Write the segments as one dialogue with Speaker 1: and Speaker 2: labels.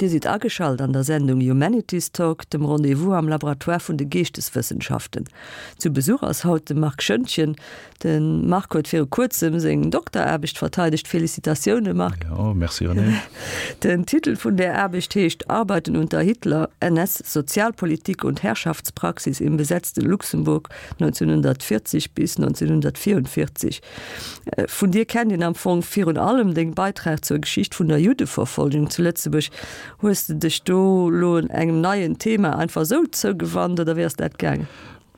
Speaker 1: Dir sidd ageschalt an der Sendung Humanities Talk, dem Rendez-vous am Laboratoire vun de Geeschteswëssenschaften. Zu Besuch ass haut de Marc Schoentgen. De Marc huet viru kuerzem seng Dokteraarbecht verteidegt. Felicitatioune Marc!
Speaker 2: Jo, merci Renée.
Speaker 1: Den Titel vun där Aarbecht heescht Arbeiten unter Hitler, NS-Sozialpolitik und Herrschaftspraxis im besetzten Luxemburg 1940 bis 1944. Vun dir kennt een am Fong virun allem deng Beitrag zur Geschicht vun der Juddeverfolgung zu Lëtzebuerg. Hues de dech do lo engem neien Thema einfach esou zougewannt oder wéi ass dat gaangen?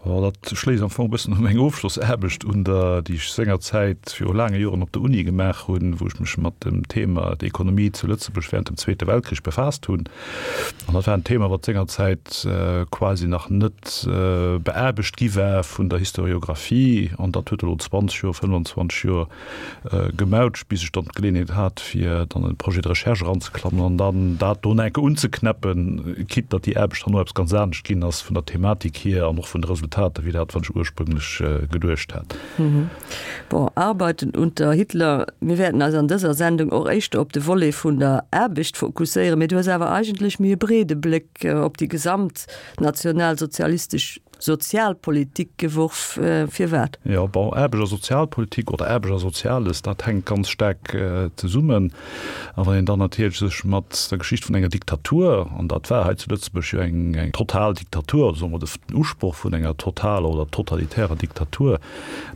Speaker 2: Bon, dat schléisst am Fong e bëssen u meng Ofschlossaarbecht un, der, déi ech sengerzäit viru laange Joren op der Uni gemaach hunn, wou ech mech mat dem Thema d'Ekonomie zu Lëtzebuerg während dem Zweete Weltkrich befaasst hunn. An dat war en Thema, wat sengerzäit quasi nach net beaarbecht gi war vun der Historiographie. An dat huet elo 20 Joer, 25 Joer gemautscht, bis ech dann d'Geleeënheet hat, fir dann en Projet de recherche eranzeklammen an dann dat do nach eng Kéier unzeknäppen, quitte datt déi Aarbecht herno eppes ganz anescht ginn ass vun der Thematik hier an och vun de Resultater wéi dat, wat ech ursprünglech geduecht hat.
Speaker 1: Bon, Arbeiten unter Hitler, mir wäerten eis an dëser Sendung och éischter op de Volet vun der Aarbecht fokusséieren, mee du hues awer eigentlech méi e breede Bléck op déi gesamt nationalsozialistesch Sozialpolitik geworf. Firwat?
Speaker 2: Jo, bon, Aarbecht a Sozialpolitik oder Aarbecht a Soziales, dat hänkt ganz staark zesummen. A wann een dann natierlech sech mat der Geschicht vun enger Diktatur, an dat war hei zu Lëtzebuerg jo eng total Diktatur, oder soe mer den Usproch vun enger totaler oder totalitärer Diktatur,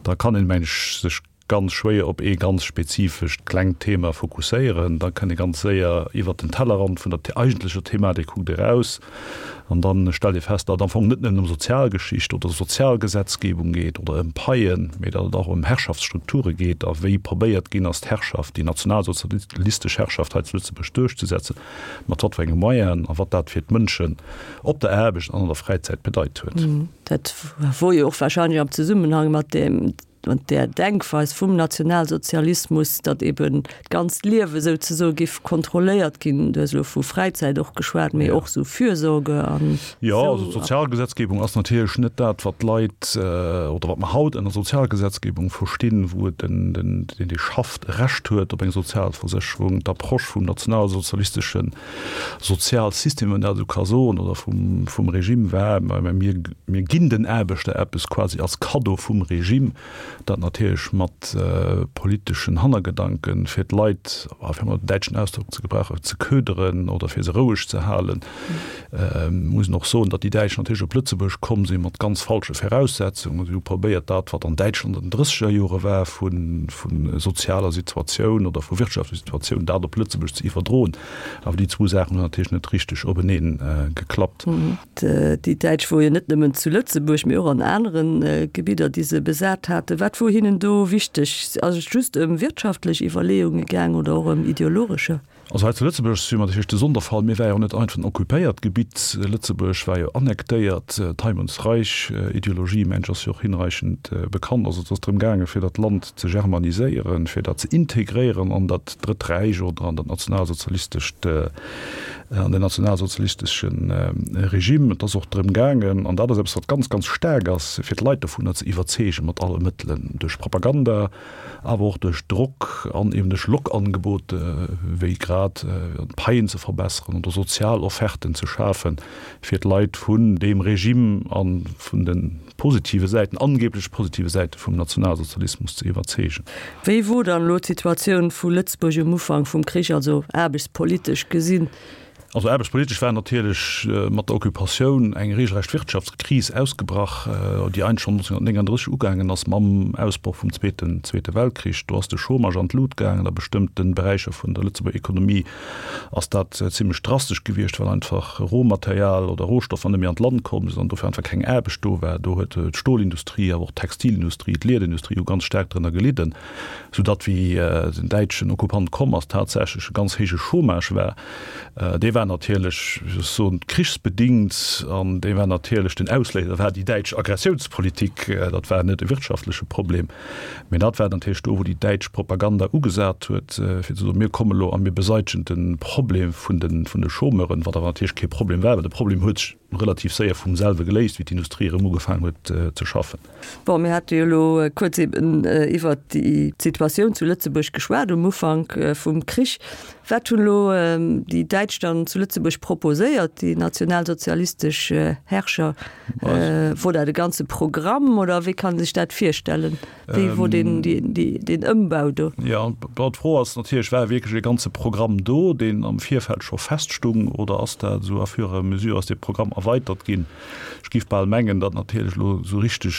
Speaker 2: da kann een, meng ech, sech ganz schwéier op ee ganz spezifescht klengt Thema fokusséieren. Da kënnt ee ganz séier iwwert den Tellerrand vun der eigentlecher Thematik kuckt eraus an da stellt ee fest, datt et am Fong net nëmmen ëm Sozialgeschicht oder Sozialgesetzgebung geet oder ëm Paien, mee datt et och ëm Herrschaftsstrukture geet a wéi probéiert ginn ass d'Herrschaft, déi nationalsozialistesch Herrschaft hei zu Lëtzebuerg duerchzesetzen, mat wat fir enge Moyenen a wat dat fir d'Mënschen op der Aarbecht an an der Fräizäit bedeit huet.
Speaker 1: Dat wor jo och wahrscheinlech am Zesummenhang mat deem Mat där Denkweis vum Nationalsozialismus, datt eben d'ganzt Liewe souzesoe giff kontrolléiert ginn, du hues elo vu Fräizäit och geschwat, mee och sou Fürsorge an
Speaker 2: Jo, also d'Sozialgesetzgebung ass natierlech net dat, wat d'Leit oder wat mer haut ënner Sozialgesetzgebung verstinn, wou et den, den, deen, dee schafft, e Recht huet op eng Sozialversécherung. D'Approche vum nationalsozialistesche Sozialsystem, wann een dat esou ka soen, oder vum, vum Regime war, mä mir, mir ginn den Aarbechter eppes quasi als Kaddo vum Regime, dat natierlech mat politeschen Hannergedanken, fir d'Leit, fir emol den däitschen Ausdrock ze gebrauchen, ze köderen oder fir se roueg ze halen. Muss een och soen, datt déi Däitsch natierlech op Lëtzebuerg komm si mat ganz falsche Voraussetzungen. Si hu probéiert, dat, wat an Däitschland an den drësseger Jore war vu, vu sozialer Situatioun oder vu wirtschaftlecher Situatioun, dat op Lëtzebuerg ze iwwerdroen. Awer déi zwou Saachen hunn natierlech net richteg openee geklappt.
Speaker 1: Déi Däitsch wor jo net nëmmen zu Lëtzebuerg, mee och an anere Gebidder, déi se besat haten. Wat wor hinnen do wichteg? Ass et just ëm wirtschaftlech Iwwerleeunge gaang oder och ëm ideologescher?
Speaker 2: Also hei zu Lëtzebuerg si mer natierlech de Sonderfall. Mir war jo net einfach en occupéiert Gebitt. Lëtzebuerg war jo annektéiert. D'Heim-und-Reich-Ideologie, mensch, ass jo och hinreichend bekannt. Also et ass drëm gaangen, fir dat Land ze germaniséieren, fir dat ze integréieren an dat Drëtt Räich oder an dat nationalsozialistescht, an den nationalsozialistesche Regime. Et ass och drëm gaangen, an dat ass eppes, wat ganz, ganz staark ass, fir d'Leit dovunner ze iwwerzeegen, mat alle Mëttelen, duerch Propaganda, awer och duerch Drock an eben duerch Lockangebote wéi grad d'Paien ze verbesseren oder sozial Offerten ze schafen, fir d'Leit vun deem Regime a vun de positive Säiten, angeblech positive Säite vum Nationalsozialismus ze iwwerzeegen.
Speaker 1: Wéi wor dann elo d'Situatioun vu Lëtzebuerg um Ufank vum Krich, also aarbechtspolitesch gesinn?
Speaker 2: Also aarbechtspolitesch war natierlech mat der Occupatioun eng regelrecht Wirtschaftskris ausgebrach, déi eigentlech schonn 1939 ugaangen ass mam Ausbroch vum Zweeten Zweete Weltkrich. Do ass de Chômage an d'Lut gaangen. A bestëmmte Beräicher vun der Lëtzebuerger Ekonomie ass dat zimmlech drastesch gewiescht, well einfach Rohmaterial oder Rohstoffer net méi an d'Land komm sinn an dofir einfach keng Aarbecht do war. Do huet d'Stolindustrie, awer och d'Textilindustrie, d'Liederindustrie hu ganz staark drënner gelidden, soudatt wéi den däitschen Okkupant komm ass, tatsächlech e ganz héije Chômage war. Dee war natierlech, wéi soll ech soen, krichsbedingt an dee war natierlech, den Ausléiser war déi däitsch Aggressiounspolitik. Dat war net e wirtschaftleche Problem, mä dat war natierlech do, wou déi däitsch Propaganda ugesat huet, fir ze soen, mir kommen elo a mir beseitegen de Problem vun de, vun de Chômeuren, wat awer natierlech kee Problem war, well de Problem huet sech. relativ séier vum selwe geléist, wéi d'Industrie erëm ugefaangen huet ze schaffen.
Speaker 1: Bon, mir hate jo elo kuerz eben iwwert déi Situatioun zu Lëtzebuerg geschwat um Ufank vum Krich. Wat hunn elo déi Däitsch dann zu Lëtzebuerg proposéiert, déi nationalsozialistesch Herrscher? Wor dat e ganze Programm oder wéi kann ee sech dat virstellen? Wéi wor deen, deen Ëmbau do?
Speaker 2: Jo, bon, d'Fro ass natierlech, War wierklech e ganze Programm do, deen am Virfeld scho feststung, oder ass dat esou à fur et à mesure ass dee Programm erweitert ginn? Ech géif bal mengen, datt natierlech elo esou richteg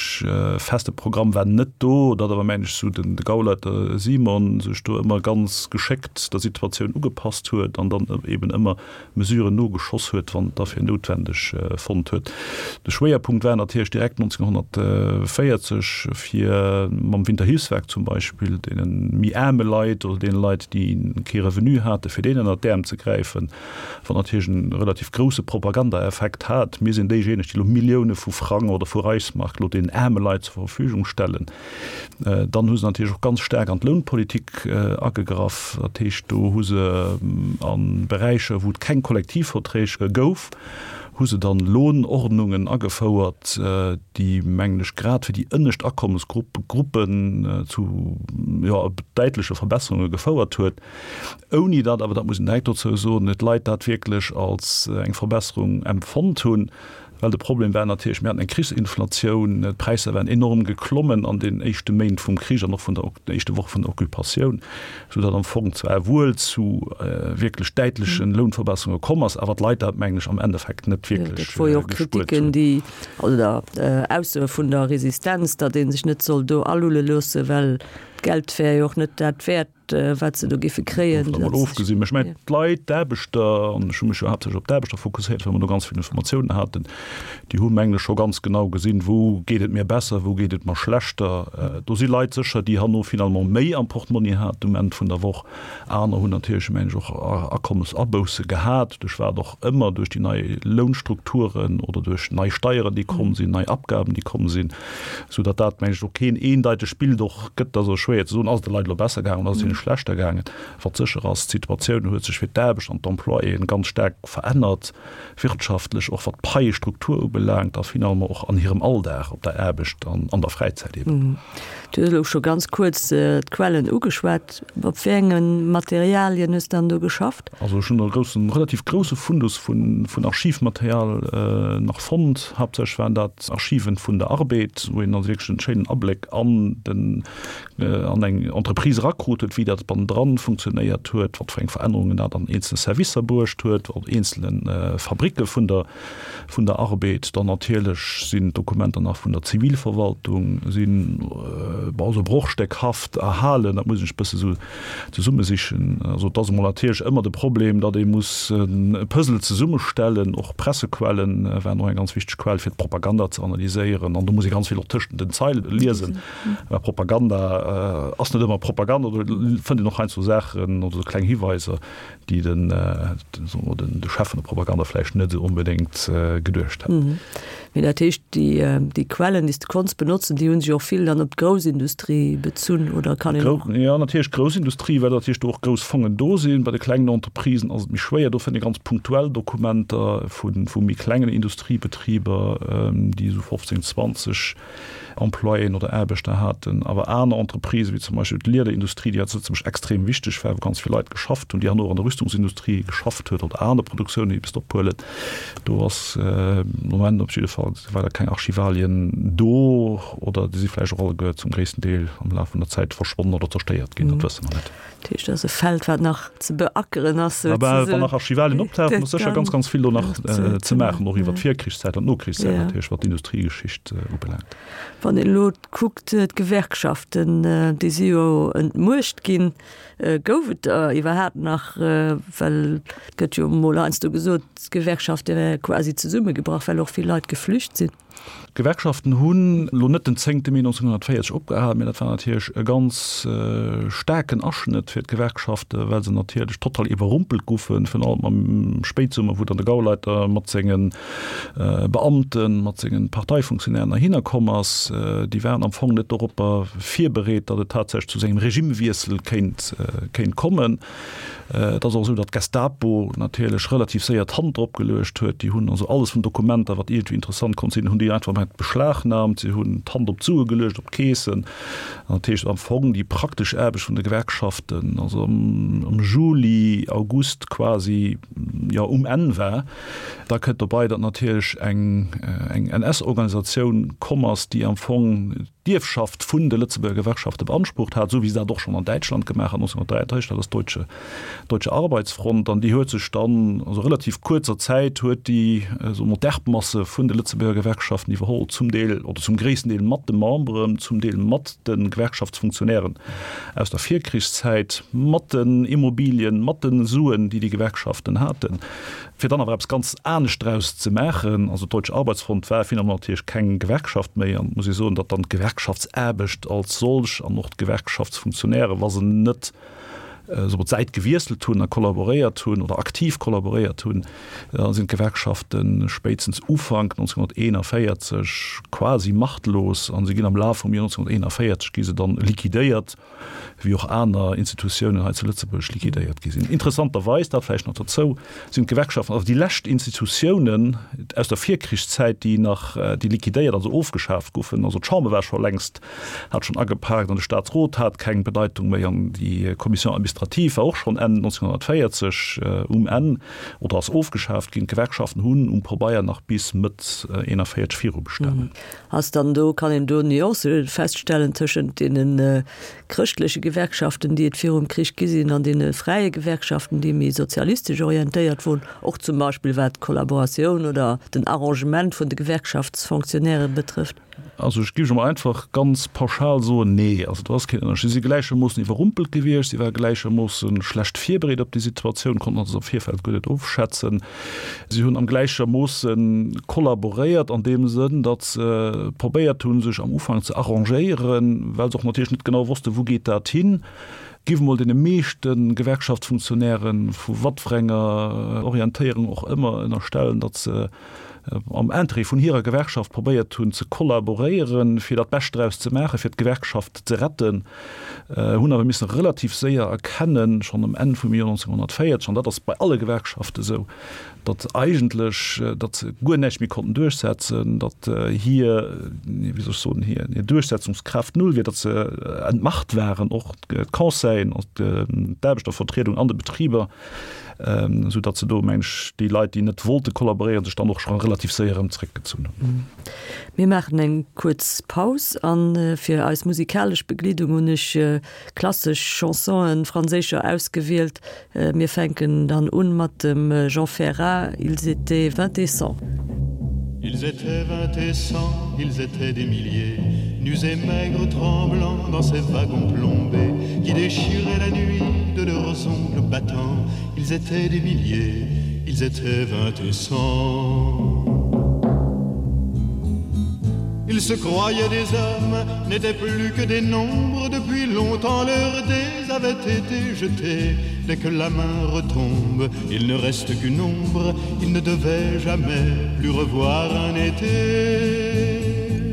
Speaker 2: feste Programm war net do, datt awer, mengen ech, esou den de Gauleiter Simon sech do ëmmer ganz geschéckt der Situatioun ugepasst huet an dann eben ëmmer Mesuren nogeschoss huet, wann et da fir noutwendeg fonnt huet. De Schwéierpunkt war natierlech direkt 1940, fir mam Winterhilfswerk zum Beispill deene méi aarme Leit oder deene Leit, déi kee Revenu haten, fir deenen ënnert d'Äerm ze gräifen, wat natierlech e relativ grousse Propagandaeffekt hat. Mir sinn déijéineg, déi elo Millioune vu Frang oder vu Reichsmark elo deenen aarme Leit zur Verfügung stellen. Dann hu se natierlech och ganz staark an d'Lounpolitik agegraff. Dat heescht, do hu se a Beräicher, wou et keng Kollektivverträg gouf, hu se dann Lohnordnungen agefouert, déi, mengen ech, grad fir déi ënnescht Akommesgruppen zu, jo, däitleche Verbesserunge gefouert huet, ouni datt awer, dat muss een direkt dozou soen, d'Leit dat wierklech als eng Verbesserung empfonnt hunn. Well de Problem war natierlech, mir haten eng Krichsinflatioun, d'Präisser waren enorm geklommen an den éischte Méint vum Krich an och vun der den éischte Woche vun der Occupatioun, soudatt am Fong zwar wuel zu wierklech däitleche Lounverbesserunge komm ass, awer d'Leit dat, mengen ech, am Endeffekt net wierklech
Speaker 1: Dat wor jo och gespuert Kritiken, hunn. déi, oder Aussoe vun der Resistenz, datt ee sech net soll do alulle loosse, well d'Geld wär jo och net dat wäert. wat se do géife kréien.
Speaker 2: Dovun emol ofgesinn, mä ech mengen, d'Leit, d'Aarbechter, an ech hu mech jo haaptsächlech op d'Aarbechter fokusséiert, well mer do ganz vill Informatiounen haten, déi hu mengen ech scho ganz genau gesinn, wou geet et mir besser, wou geet et mer schlechter. Do si Leit sécher, déi herno finalement méi am Portmonni haten um Enn vun der Woch. Aner hunn natierlech, mengen ech, och Akommesabousse gehat, duerch wat och ëmmer, duerch déi nei Lounstrukturen oder duerch nei Steieren, déi komm sinn, nei Abgaben, déi komm sinn. Sou datt dat, mengen ech, och keen eendeitegt Bild och gëtt. Et ass och schwéier ze soen, ass et de Leit elo besser gaangen oder ass et hinne schlechter gaangen. Wat sécher ass, d'Situatioun huet sech fir d'Aarbecht an d'Employéen ganz staark verännert, wirtschaftlech, och wat d'Paiestruktur ubelaangt a finalement och an hirem Alldag op der Aarbecht an an der Fräizäit
Speaker 1: eben. Du hues elo scho ganz kuerz d'Quellen ugeschwat. Op wéi enge Materialien hues de dann do geschafft?
Speaker 2: Also ech hunn e groussen, relativ grousse Fundus vun Archivmaterial nach fonnt. Haaptsächlech waren dat Archiven vun der Arbed, wou een also wierklech en schéinen Abléck an den, an eng Entreprise erakrut huet, wéi dat bannendran funktionéiert huet, wat fir eng Verännerungen dat an eenzele Servicer bruecht huet, an eenzele Fabricke vun der, vun der Arbed. Dann natierlech sinn d'Dokumenter nach vun der Zivilverwaltung, sinn, bon, esou brochstéckhaft erhalen, dat muss een sech e bësse sou zesummesichen. Also et ass emol natierlech ëmmer de Problem, datt ee muss e Puzzle zesummestellen. Och Pressequellen waren och eng ganz wichteg Quell, fir d'Propaganda ze analyséieren. An do muss ee ganz vill och tëschent den Zeile liesen, well Propaganda ass net ëmmer Propaganda. Do fënnt een och heiansdo Saachen oder esou kleng Hiweiser, déi den, soe mer, de Chef vun der Propaganda vläicht net esou onbedéngt geduecht hätt.
Speaker 1: Mee dat heescht, déi, déi Quellen, déi s de konns benotzen, déi hu sech och vill dann op d'Groussindustrie bezunn, oder kann een och.
Speaker 2: Jo, natierlech d'Groussindustrie, well natierlech do och grouss Fongen do sinn. Bei de klengen Entreprisen ass et méi schwéier. Do fënnt ee ganz punktuell Dokumenter vu, vu méi klengen Industriebetriber, déi esou 15, 20 Employéen oder Aarbechter haten, awer aner Entreprisen, wéi zum Beispill d'Liederindustrie, déi zu Lëtzebuerg extrem wichteg war, wou ganz vill Leit geschafft hunn, déi herno och an der Rüstungsindustrie geschafft huet oder aner Produktiounen, déi bis ophuelen, do ass de Moment op jidde Fall weider keng Archivalien do oder déi si vläicht och alleguer zum gréissten Deel am Laf vun der Zäit verschwonnen oder zerstéiert ginn, dat wësse mer net.
Speaker 1: Dat heescht, dat ass e Feld, wat nach ze beackeren ass,
Speaker 2: souzesoen. Wann nach Archivalien optauchen, ass sécher ganz, ganz vill do nach ze maachen, och iwwer d'Virkrichszäit an d'Nokrichszäit natierlech, wat d'Industriegeschicht ubelaangt.
Speaker 1: Wann een elo kuckt, d'Gewerkschaften, déi si jo entmuecht ginn. Gouf et der iwwerhaapt nach? Well et gëtt jo emol heiansdo gesot, d'Gewerkschafte wäre quasi zesummegebrach, well och vill Leit geflücht sinn.
Speaker 2: D'Gewerkschaften hunn elo net den zéngte Mee 1940 opgehal, mä dat war natierlech e ganz staarken Aschnëtt fir d'Gewerkschaften, well se natierlech total iwwerrumpelt goufen, virun allem am Spéitsummer, wou dann de Gauleiter mat senge Beamten, mat senge Parteifunktionären heihinner komm ass. Déi waren am Fong net doropper virbereet, datt et tatsächlech zu sengem Regimewiessel kéint kéint kommen. Et ass och esou, datt d'Gestapo natierlech relativ séier d'Hand drop geluecht huet. Déi hunn also alles vun Dokumenter, wat iergendwéi interessant konnt sinn, hunn déi einfach mat beschlagnahmt. Si hunn d'Hand op d'Sue geluecht, op d'Keesen. An dat heescht am Fong déi praktesch Aarbecht vun de Gewerkschaften, also am Juli, August quasi, jo, um Enn war. Da kënnt dobei, datt natierlech eng NS-Organisatioun komm ass, déi am Fong, d'Ierfschaft vun de Lëtzebuerger Gewerkschafte beansprucht hat, esou wéi se dat och schonn an Däitschland gemaach hat 1933, dat ass d'Deutsche Deutsche Arbeitsfront. An déi huet sech dann, also relativ kuerzer Zäit huet déi, soe mer, d'Erbmasse vun de Lëtzebuerger Gewerkschaften iwwerholl, zum Deel oder zum gréissten Deel mat de Memberen, zum Deel mat de Gewerkschaftsfunktionären aus der Virkrichszäit, mat den Immobilien, mat de Suen, déi déi Gewerkschaften haten. Fir dann awer eppes ganz anescht draus ze maachen, also d'Deutsche Arbeitsfront war finalement natierlech keng Gewerkschaft méi, an et muss ee soen, datt dann d'Gewerkschaftsaarbecht als solch an och d'Gewerkschaftsfunktionären, wa se net soe mer d'Säit gewiesselt hunn a kollaboréiert hunn oder aktiv kollaboréiert hunn, da sinn d'Gewerkschafte spéitstens Ufank 1941 quasi machtlos a se ginn am Laf vum Joer 1941 gi se dann liquidéiert. wéi och aner Institutiounen hei zu Lëtzebuerg liquidéiert gi sinn. Interessanterweis, dat vläicht nach dozou, sinn d'Gewerkschaften also déi lescht Institutiounen aus der Virkrichszäit, déi nach, déi liquidéiert, also ofgeschaaft goufen. Also d'Chamber war scho längst, hat schonn agepaakt an de Staatsrot hat keng Bedeitung méi an déi Commission administrative war och schonn Enn 1940 um Enn oder ass ofgeschaaft ginn. D'Gewerkschaften hunn um Pabeier nach bis Mëtt 41 virubestanen.
Speaker 1: Ass dann do, kann een do Nuancë feststellen tëschent deene chrëschtleche Gewerkschaften, déi et virum Krich gi sinn, an deene fräie Gewerkschaften, déi méi sozialistesch orientéiert woren, och zum Beispill wat d'Kollaboratioun oder den Arrangement vun de Gewerkschaftsfonctionnairë betrëfft?
Speaker 2: Also ech géif emol einfach ganz pauschal soen, nee. Also do ass keen Ënnerscheed. Si si gläichermoossen iwwerrumpelt gewiescht, si ware gläichermoosse schlecht virbereet op déi Situatioun, konnten also am Virfeld guer net ofschätzen. Si hunn am gläichermoosse kollaboréiert an deem Sënn, datt se probéiert hunn, sech am Ufank ze arrangéieren, well se och natierlech net genau wossten, wou geet dat hin. Giff emol deene meeschte Gewerkschaftsfunktionären, vu watfir enger Orientéierung och ëmmer, ënnerstellen, datt se am Interêt vun hirer Gewerkschaft probéiert hunn ze kollaboréieren, fir dat Bescht draus ze maachen, fir d'Gewerkschaft ze retten. Hunn awer missen relativ séier erkennen, schonn um Enn vum Joer 1940, an dat ass bei alle Gewerkschaften esou, datt eigentlech, datt se guer näischt méi konnten duerchsetzen, datt hir, wéi soll ech soen, hir Duerchsetzungskraaft null wier, datt se entmacht waren, och d'Conseillen, d'Aarbechtervertriedung an de Betriber, esou datt se do, meng ech, déi Leit, déi net wollte kollaboréieren, sech dann och scho relativ séier erëm zeréckgezunn hunn.
Speaker 1: Mir maachen eng kuerz Paus a fir eis musikalesch Begleedung hunn ech klassesch Chansonen, franséischer, ausgewielt. Mir fänken dann un mat dem Jean Ferrat, Ils étaient vingt et cent.
Speaker 3: Ils étaient vingt et cent, ils étaient des milliers, nus et maigres tremblants dans ces wagons plombés qui déchiraient la nuit de leurs ongles battants. Ils étaient des milliers, ils étaient vingt et cent. Ils se croyaient des hommes, n'étaient plus que des nombres depuis longtemps leurs dés avaient été jetés. Dès que la main retombe, il ne reste qu'une ombre, il ne devait jamais plus revoir un été.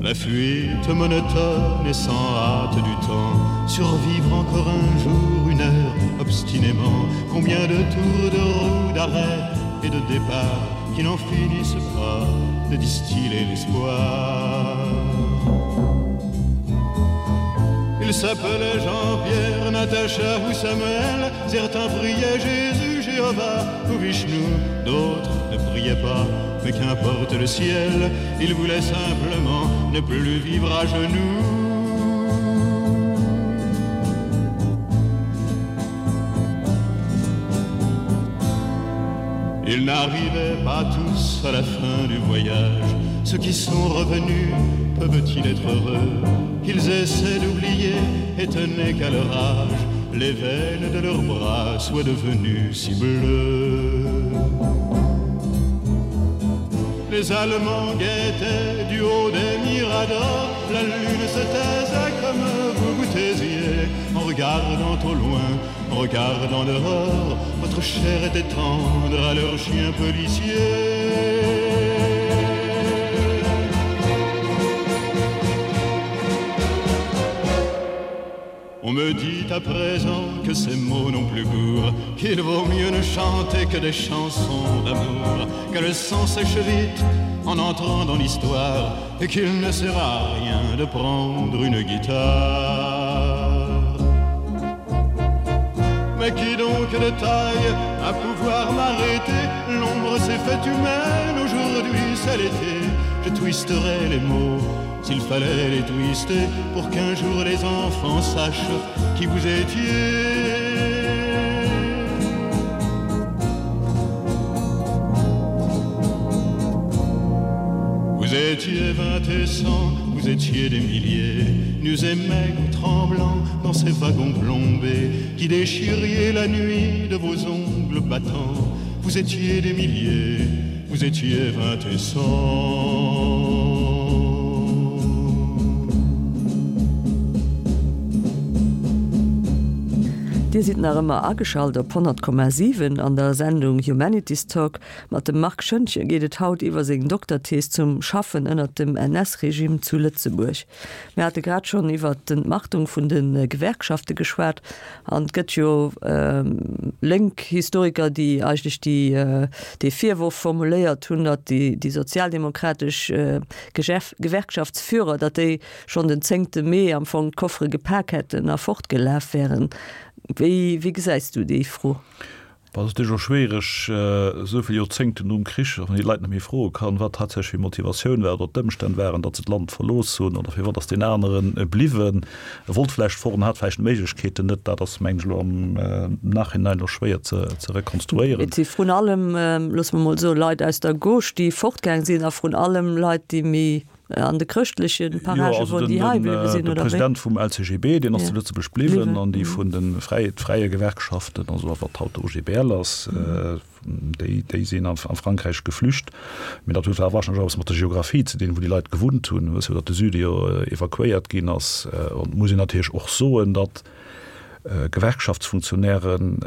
Speaker 3: La fuite monotone et sans hâte du temps, survivre encore un jour, une heure, obstinément, combien de tours de roue d'arrêt et de départ qui n'en finissent pas de distiller l'espoir. Il s'appelait Jean-Pierre, Natacha ou Samuel, certains priaient Jésus, Jéhovah ou Vishnu, d'autres ne priaient pas, mais qu'importe le ciel, ils voulaient simplement ne plus vivre à genoux. Ils n'arrivaient pas tous à la fin du voyage. Ceux qui sont revenus peuvent-ils être heureux? Ils essaient d'oublier, étonnés qu'à leur âge. Les veines de leurs bras soient devenues si bleues. Les Allemands guettaient du haut des miradors, la lune se taisait comme vous vous taisiez en regardant au loin, en regardant dehors, votre chair était tendre à leurs chiens policiers. On me dit à présent que ces mots n'ont plus cours, qu'il vaut mieux ne chanter que des chansons d'amour, que le sang sèche vite en entrant dans l'histoire et qu'il ne sert à rien de prendre une guitare. Mais qui donc de taille à pouvoir m'arrêter L'ombre s'est faite humaine, aujourd'hui c'est l'été Je twisterai les mots s'il fallait les twister Pour qu'un jour les enfants sachent qui vous étiez Vous étiez vingt et cent, vous étiez des milliers, nus et maigres, tremblants dans ces wagons plombés qui déchiriez la nuit de vos ongles battants. Vous étiez des milliers, vous étiez vingt et cent.
Speaker 1: Dir sidd nach ëmmer ageschalt op 100,7 an der Sendung Humanities Talk. Mat dem Marc Schoentgen geet et haut iwwer seng Dokterthees zum Schaffen ënnert dem NS-Regime zu Lëtzebuerg. Mir hate grad schonn iwwer d'Entmachtung vun de Gewerkschafte geschwat an et gëtt jo lénk Historiker, déi eigentlech déi dee Virworf formuléiert hunn, datt déi sozialdemokratesch Gewerkschaftsführer, datt déi schonn den zéngte Mee am Fong d'Koffere gepak hätten a fortgelaf wären. Wéi wéi gesäis du déi Fro?
Speaker 2: Et ass natierlech och schwiereg, esou vill Joerzéngten nom Krich, wann een déi Leit net méi froe kann, wat tatsächlech hir Motivatioun war oder d'Ëmstänn waren, datt se d'Land verlooss hunn oder firwat ass deen anere bliwwen. E wollt vläicht fort an hat vläicht d'Méiglechkeeten net. Dat ass, mengen ech, elo am Nachhinein elo schwéier ze rekonstruéieren.
Speaker 1: Et si vrun allem, loosse mer mol soen, Leit aus der Gauche, déi fortgaang sinn a vrun allem Leit, déi méi An de chrëschtleche Parage wor déi hei bliwwe sinn,
Speaker 2: oder wéi? De President vum LCGB, deen ass zu Lëtzebuerg bliwwen, an déi vun de fräie Gewerkschaften, also wat haut de OGBL ass, déi, déi sinn a Frankräich geflücht. Mee dat huet awer warscheinlech och eppes mat der Geographie ze dinn, wou déi Leit gewunnt hunn. Wëss jo, datt de Süde jo evakuéiert ginn ass. An et muss een natierlech och soen, datt Gewerkschaftsfunktionären,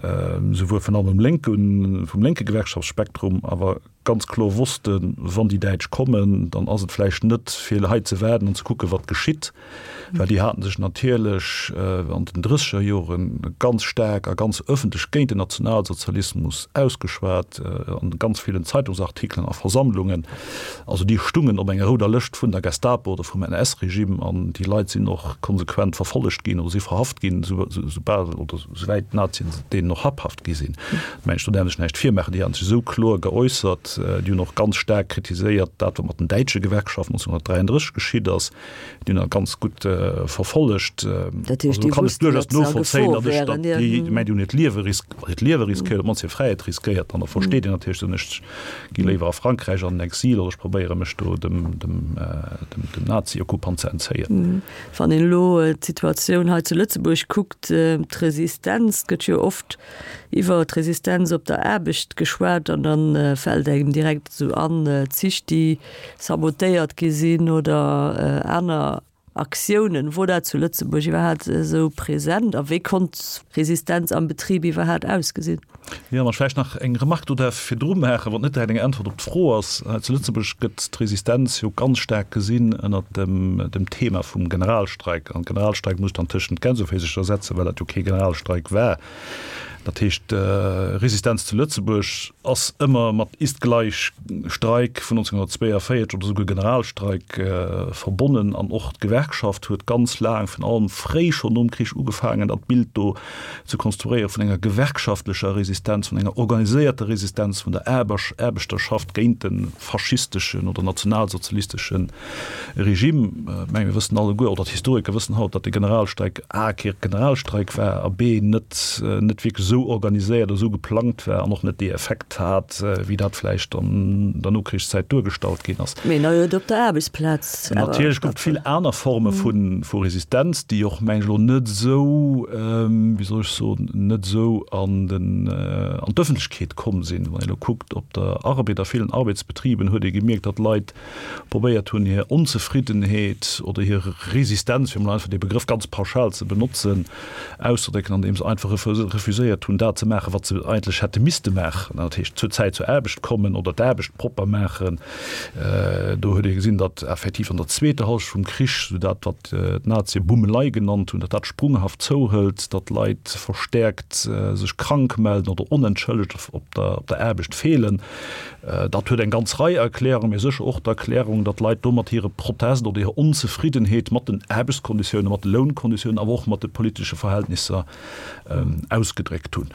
Speaker 2: souwuel vun allem lénken, vum lénke Gewerkschaftsspektrum, awer ganz kloer wossten, wann déi Däitsch kommen, dann ass et vläicht net fir hei ze waarden an ze kucken, wat geschitt, well déi haten sech natierlech an den drësseger Jore ganz staark a ganz ëffentlech géint den Nationalsozialismus ausgeschwat, an ganz villen Zeitungsartikelen a Versammlungen. Also déi stungen op enger rouder Lëscht vun der Gestapo oder vum NS-Regime an déi Leit sinn och konsequent verfollegt ginn oder si verhaft ginn, soubal oder souwäit d'Nazien deenen och habhaft gi sinn. Mä ech do däerf sech näischt virmaachen, déi haten sech esou kloer geäussert, déi hunn och ganz staark kritiséiert dat, wat mat den däitsche Gewerkschaften 1933 geschitt ass, déi hunn dat ganz gutt verfollegt.
Speaker 1: Dat heescht, déi wussten, datt se a Gefor wären,
Speaker 2: jo. Déi, mä déi hunn hiert Liewe ris-, hiert Liewe riskéiert, op d'mannst hir Fräiheet riskéiert. An da versteet een natierlech, soen ech gi léiwer a Frankräich an den Exil oder ech probéiere mech do dem, dem, dem Nazi-Okkupant ze entzéien.
Speaker 1: Wann een elo d'Situatioun hei zu Lëtzebuerg kuckt, d'Resistenz, et gëtt jo oft iwwer d'Resistenz op der Aarbecht geschwat an da fält engem direkt esou an, Zich déi sabotéiert gi sinn oder aner Aktiounen. Wor dat zu Lëtzebuerg iwwerhaat esou present a wéi konnt Resistenz am Betrib iwwerhaat ausgesinn?
Speaker 2: Jo, wann ech vläicht nach eng Remark do däerf virdru maachen, wat net direkt eng Äntwert op d'Fro ass. Hei zu Lëtzebuerg gëtt d'Resistenz jo ganz staark gesinn ënnert dem, dem Thema vum Generalstreik. An Generalstreik muss ech dann tëschent Gänseféisercher setzen, well dat jo kee Generalstreik war. Dat heescht, Resistenz zu Lëtzebuerg ass ëmmer mat ist gleich Streik vun 1942 oder souguer Generalstreik verbonnen. An och d'Gewerkschaft huet ganz laang, virun allem fréi schonn nom Krich ugefaangen, dat Bild do ze konstruéiere vun enger gewerkschaftlecher Resistenz, vun enger organiséierter Resistenz vun der Aarbechterschaft géint de faschisteschen oder nationalsozialistesche Regime. Ech menge mir wëssen alleguer, oder d'Historiker wëssen haut, datt de Generalstreik a kee Generalstreik war a b net net wierklech esou. esou organiséiert a esou geplangt war an och net dee Effekt hat, wéi dat vläicht an der Nokrichszäit duergestallt ginn ass.
Speaker 1: Mee na huet op der Aarbechtsplaz
Speaker 2: awer. Natierlech gouf et vill aner Forme vu Resistenz, déi och, meng ech, elo net esou, wéi soll ech soen, net esou an den, an d'Ëffentlechkeet komm sinn. Wann ee elo kuckt, op der Arbed, a villen Arbedsbetriben huet ee gemierkt, datt Leit probéiert hunn, hir Onzefriddenheet oder hir Resistenz, fir emol einfach dee Begrëff ganz pauschal ze benotzen, auszedrécken, andeem se einfach refuséiert hunn, dat ze maachen, wat se eigentlech hätte misste maachen, dat heescht zur Zäit zur Aarbecht kommen oder d'Aarbecht propper maachen. Do huet ee gesinn, datt effektiv an der zweeter Hallschent vum Krich, esou dat, wat d'Nazie Bummelei genannt hunn, datt dat sprunghaft zouhëlt, datt Leit verstäerkt sech krank melden oder onentschëllegt op der Aarbecht feelen. Dat huet eng ganz Rei Erklärungen, mee sécher och d'Erklärung, datt d'Leit domat hire Protest oder hir Onzefriddenheet mat den Aarbechtskonditiounen, mat de Lounkonditiounen, awer och mat de politesche Verhältnisser ausgedréckt hunn.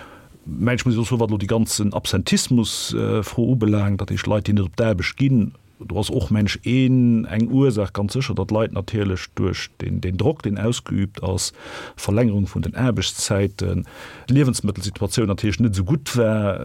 Speaker 2: Mä ech muss och soen, wat elo déi ganzen Absentismus-Fro ubelaangt, dat heescht Leit, déi net op d'Aarbecht ginn, do ass och, mengen ech, een, eng Ursaach ganz sécher, datt d'Leit natierlech duerch deen Drock, deen ausgeübt ass, Verlängerung vun den Aarbechtszäiten, d'Liewensmëttelsituatioun natierlech net esou gutt war,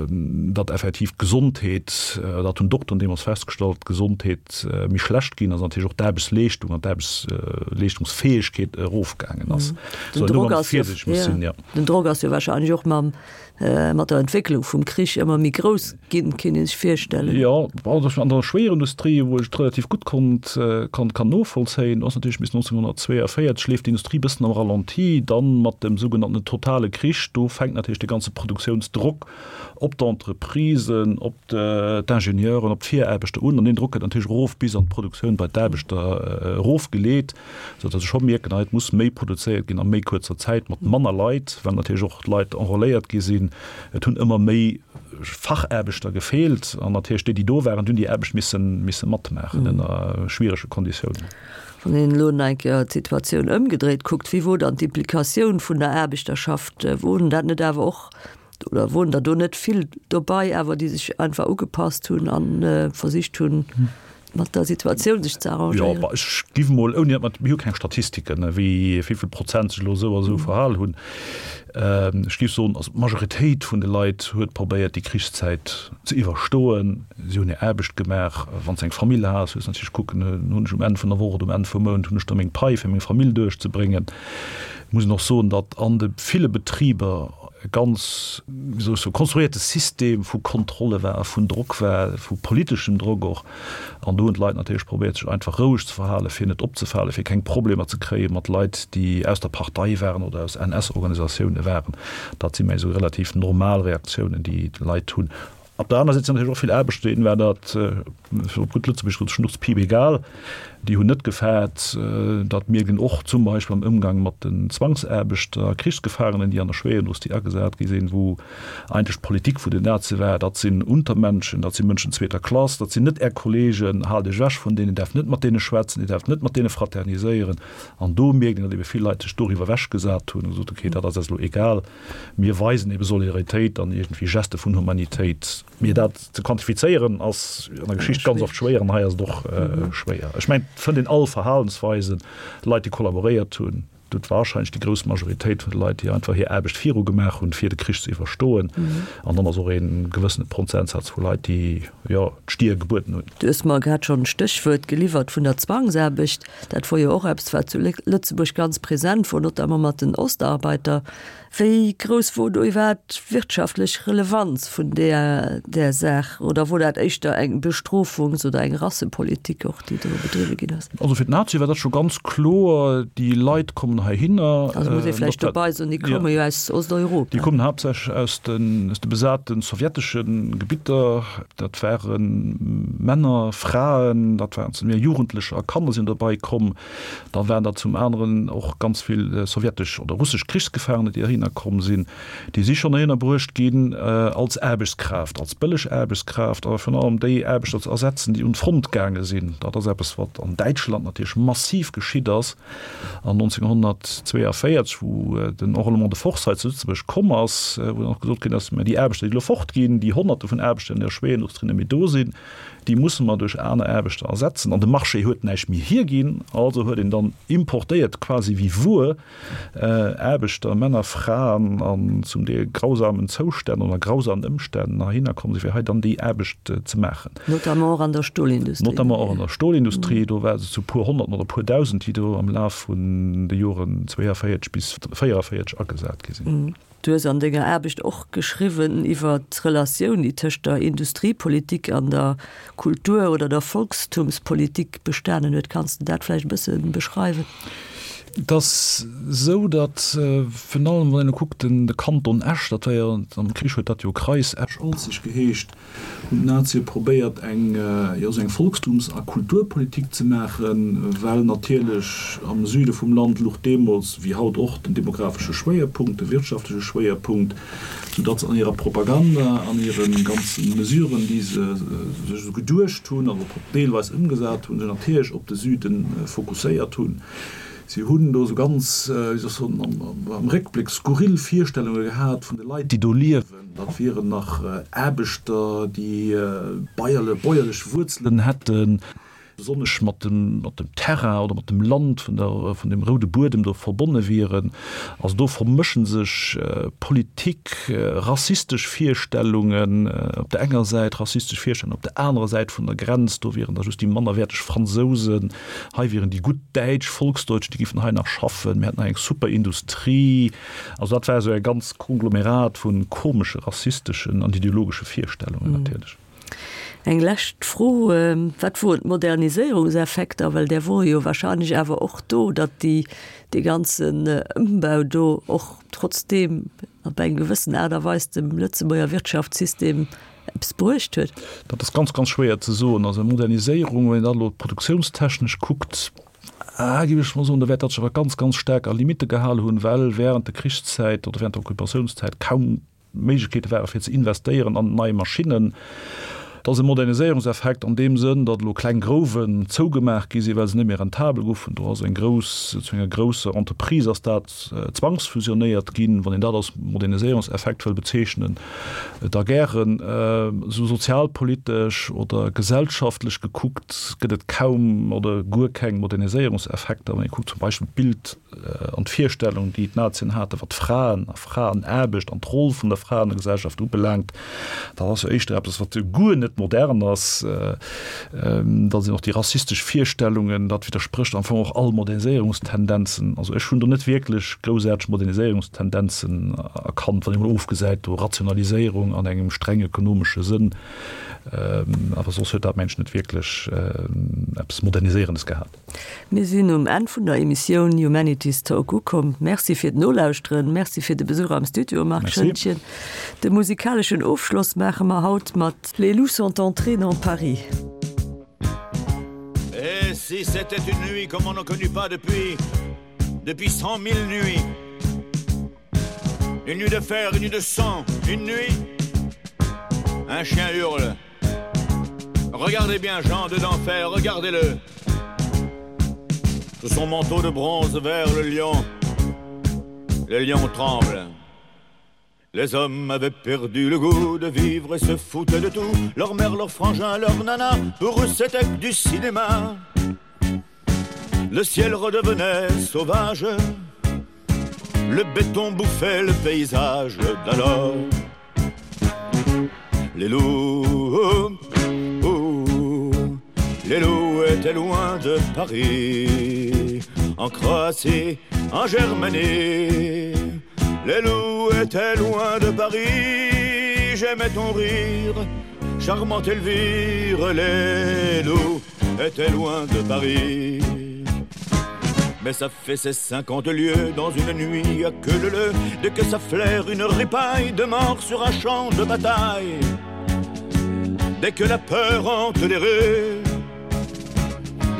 Speaker 2: datt effektiv d'Gesondheet, dat hunn d'Dokteren deemools festgestallt, d'Gesondheet méi schlecht ginn ass an natierlech och d'Aarbechtsleeschtung an d'Aarbechtsleeschtungsfäegkeet erofgaangen ass.
Speaker 1: Den Drock ass jo, den Drock ass jo wahrscheinlech och mam mat der Entwécklung vum Krich ëmmer méi grouss ginn, kéint ee sech virstellen.
Speaker 2: Jo, also an der Schwéierindustrie, wou ech et relativ gutt konnt, kann, kann novollzéien, ass natierlech bis 1942 leeft d'Industrie bëssen am Ralenti, dann mat dem sougenannten totale Krich, do fänkt natierlech de ganze Produktiounsdrock op d'Entreprisen, op d'Ingenieuren, op d'Viraarbechter un an deen Drock gëtt natierlech erof bis an d'Produktioun bei d'Aarbechter erofgeleet. Sou datt ech scho mierken, hei et muss méi produzéiert ginn a méi kuerzer Zäit mat manner Leit, well natierlech och d'Leit enrôléiert gi sinn. Et hunn ëmmer méi Fachaarbechter gefeelt an natierlech déi, déi do waren, déi hunn déi Aarbecht misse misse matmaachen ënner schwierege Konditiounen.
Speaker 1: Wann een elo nach eng Kéier d'Situatioun ëmgedréit kuckt, wéi wor dann d'Implikatioun vun der Aarbechterschaft? Woren dat net awer och Oder woren der do net vill dobei awer, déi sech einfach ugepasst hunn a versicht hunn, mat der Situatioun sech ze arrangéieren?
Speaker 2: Jo, ech giff mol, ouni datt mer, mir hu keng Statistiken, wéi vill Prozent sech elo esou a esou verhal hunn. Ech giff soen, also d'Majoritéit vun de Leit huet probéiert, déi Krichszäit ze iwwerstoen. Si hunn hir Aarbecht gemaach. Wann s de eng Famill has, hues de natierlech kucken, hunn ech um Enn vun der Woch oder um Enn vum Mount, hunn ech da meng Pai fir meng Famill duerchzebréngen. Et muss een och soen, datt an de ville Betriber e ganz, wéi soll ech soen, konstruierte System vu Kontrolle war, vun Drock war, vu politeschem Drock och. An do hunn d'Leit natierlech probéiert, sech einfach roueg ze verhalen, fir net opzefalen, fir keng Problemer ze kréie mat Leit, déi aus der Partei waren oder aus NS-Organisatioune waren. Dat si meng esou relativ normal Reaktiounen, déi d'Leit hunn. Op der aner Säit sinn natierlech och vill Aarbechter, deenen war dat, fir op gutt Lëtzebuergesch gesot, schnurzpiip egal. Déi hunn net gefaart. Dat mierkt een och zum Beispill am Ëmgang mat den Zwangsaarbechter, Krichsgefaangenen, déi an der Schwéierindustrie agesat gi sinn, wou eigentlech d'Politik vun den Nazie war, dat sinn Untermenschen, dat si Mënschen zweeter Klass, dat sinn net Är Kollegen, haalt Iech ewech vun deenen, Dir däerft net mat deene schwätzen, Dir däerft net mat deene fraterniséieren. An do mierkt een, datt ebe vill Leit sech doriwwer ewechgesat hunn a gesot hunn, okay, dat ass eis elo egal. Mir weisen ebe Solidaritéit an iergendwéi Geste vun Humanitéit. Mee dat ze quantifizéieren ass an der Geschicht ganz oft schwéier an hei ass et och schwéier. Ech mengen, et fënnt een all Verhalensweisen, Leit, déi kollaboréiert hunn, et huet warscheinlech déi grouss Majoritéit vun de Leit, déi einfach hir Aarbecht viru gemaach hunn, fir de Krich ze iwwerstoen. An dann ass och ee gewëssene Prozentsaz vu Leit, déi, jo, d'Stier gebueden hunn.
Speaker 1: Du hues mer grad schonn d'Stéchwuert geliwwert vun der Zwangsaarbecht. Dat wor jo och eppes, wat zu Lëtzebuerg ganz present wor, notamment mat den Ostarbeiter. Wéi grouss wor do iwwerhaapt d'wirtschaftlech Relevanz vun där där Saach? Oder wor dat éischter eng Bestrofungs oder eng Rassepolitik och, déi do bedriwwe ginn ass?
Speaker 2: Also fir d'Nazie war dat scho ganz kloer, déi Leit kommen heihinner.
Speaker 1: Also muss ee vläicht dobei soen, déi komme jo aus Osteuropa.
Speaker 2: Déi kommen haaptsächlech aus de aus de besate sowjetesche Gebitter. Dat ware Männer, Fraen, dat waren zum Deel Jugendlecher a Kanner sinn dobei komm. Da waren der zum aneren och ganz vill sowjetesch oder russesch Krichsgefaangene, déi heihinner komm sinn. Déi si schonn heihinner bruecht ginn als Aarbechtskraaft, als bëlleg Aarbechtskraaft, awer virun allem déi Aarbechter ze ersetzen, déi un d'Front gaange sinn. Dat ass eppes, wat an Däitschland natierlech massiv geschitt ass. An 1942, wou den Enrôlement de force hei zu Lëtzebuerg komm ass, wou dann och gesot ginn ass, mä déi Aarbechter, déi elo fortginn, déi Honnerte vun Aarbechter, déi an der Schwéierindustrie net méi do sinn, Déi musse mer duerch aner Aarbechter ersetzen. An de Marché huet näischt méi hierginn. Also huet een dann importéiert, quasi wéi Wuer, Aarbechter, Männer, Fraen an zum Deel grausamen Zoustänn oder grausamen Ëmstänn heihinner komm sinn, fir hei dann déi Aarbecht ze maachen.
Speaker 1: Notamment och an der Stolindustrie.
Speaker 2: Notamment och an der Stolindustrie. Do war se zu puer Honnerten oder puer Dausend, déi do am Laf vun de Joren 42 bis 44 agesat gi sinn.
Speaker 1: Du hues an denger Aarbecht och geschriwwen iwwer d'Relatioun, déi tëscht der Industriepolitik an der Kultur oder der Volkstumspolitik bestanen huet. Kanns de dat vläicht e bësse beschreiwen?
Speaker 2: Et ass esou, datt virun allem, wann een elo kuckt, den de Kanton Esch, dat war jo, am Krich huet dat jo Kreis Esch-Alzig geheescht, hunn d'Nazie probéiert eng, jo, esou eng Volkstums a Kulturpolitik ze maachen, well natierlech am Süde vum Land luch deemools, wéi haut och, den demographesche Schwéierpunkt, de wirtschaftleche Schwéierpunkt, soudatt se an hirer Propaganda, an hire ganze Mesuren, déi se sech esou geduecht hunn an och deelweis ëmgesat hunn, sech natierlech op de Süde fokusséiert hunn. Si hunn do esou ganz, wéi soll ech soen, am Réckbléck skurril Virstellunge gehat vun de Leit, déi do liewen. Dat wieren nach Aarbechter, déi bäuerlech Wuerzelen hätten, besonnesch mat dem Terrain oder mat dem Land vun der, vun dem roude Buedem do verbonne wieren. Also do vermësche sech Politik, rassistesch Virstellungen op der enger Säit, rassistesch Virstellungen op der anerer Säit vun der Grenz, do wieren da just déi mannerwäerteg Fransousen. Hei wieren déi gutt Däitsch, Volksdeutsch, déi giffen hei nach schaffen, mir hätten hei eng super Industrie. Also dat war esou e ganz Konglomerat vu komesche rassisteschen an ideologesche Virstellungen natierlech.
Speaker 1: Eng lescht Fro, Wat woren d'Moderniséierungseffekter, well där wore jo wahrscheinlech awer och do, datt déi, dee ganzen Ëmbau do och trotzdeem op eng gewëssen Aart a Weis dem Lëtzebuerger Wirtschaftssystem eppes bruecht huet?
Speaker 2: Dat ass ganz, ganz schwéier ze soen. Also Moderniséierung, wann een dat elo produktiounstechnesch kuckt, géif ech mol soen, da wäert dat sech awer ganz, ganz staark a Limitte gehale hunn, well während der Krichszäit oder während der Okkupatiounszäit kaum Méiglechkeete ware fir ze investéieren an nei Maschinnen. Et ass e Moderniséierungseffekt an deem Sënn, datt elo kleng Grouwen zougemaach gi sinn, well se net méi rentabel goufen. Do ass eng grouss, zu enger grousser Entreprise ass dat zwangsfusionéiert ginn, wann een dat als Moderniséierungseffekt wëll bezeechnen. Da gären. Esou sozialpolitesch oder gesellschaftlech gekuckt gëtt et kaum oder guer keng Moderniséierungseffekter. Wann ee kuckt zum Beispill d'Bild an d'Virstellung, déi d'Nazien haten, wat d'Fraen a Fraenaarbecht an d'Roll vun der Fra an der Gesellschaft ubelaangt, dat ass jo éischter eppes, wat guer net modern ass. Da sinn och déi rassistesch Virstellungen, dat widdersprécht am Fong och all Moderniséierungstendenzen. Also ech hunn do net wierklech groussaarteg Moderniséierungstendenzen erkannt, wann ee mol ofgesäit do Rationaliséierung an engem streng ökonomesche Sënn, awer soss huet dat mengen ech net wierklech eppes Moderniséierendes gehat.
Speaker 1: Mir sinn um Enn vun der Emissioun Humanities Talk ukomm. Merci fir d'Nolauschteren, Merci fir de Besuch am Studio, Marc Schoentgen. De musikaleschen Ofschloss maache mer haut mat Les loups sont entrés dans Paris.
Speaker 3: Et si c'était une nuit comme on n'en connut pas depuis depuis 100 000 nuits Une nuit de fer, une nuit de sang, une nuit Un chien hurle Regardez bien Jean de d'enfer, regardez-le Sous son manteau de bronze vers le lion Le lion tremble Les hommes avaient perdu le goût de vivre et se foutaient de tout Leur mère, leur frangin, leur nana, pour eux c'était du cinéma Le ciel redevenait sauvage Le béton bouffait le paysage d'alors Les loups, les loups étaient loin de Paris En Croatie, en Germanie Les loups étaient loin de Paris J'aimais ton rire, charmante Elvire Les loups étaient loin de Paris Mais ça fait ses 50 lieues dans une nuit à queue leu leu Dès que ça flaire une ripaille de mort sur un champ de bataille Dès que la peur hante les rues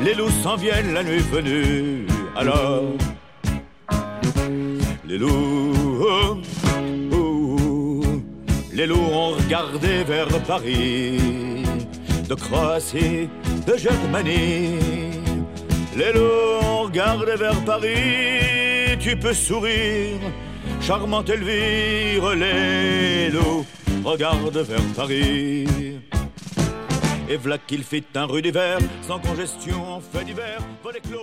Speaker 3: Les loups s'en viennent la nuit venue Alors les loups Les loups ont regardé vers Paris De Croatie, de Germanie Les loups ont regardé vers Paris Tu peux sourire, charmante Elvire Les loups regardent vers Paris. Et v'là qu'il fit un rude hiver, sans congestion en fait divers, vol éclos.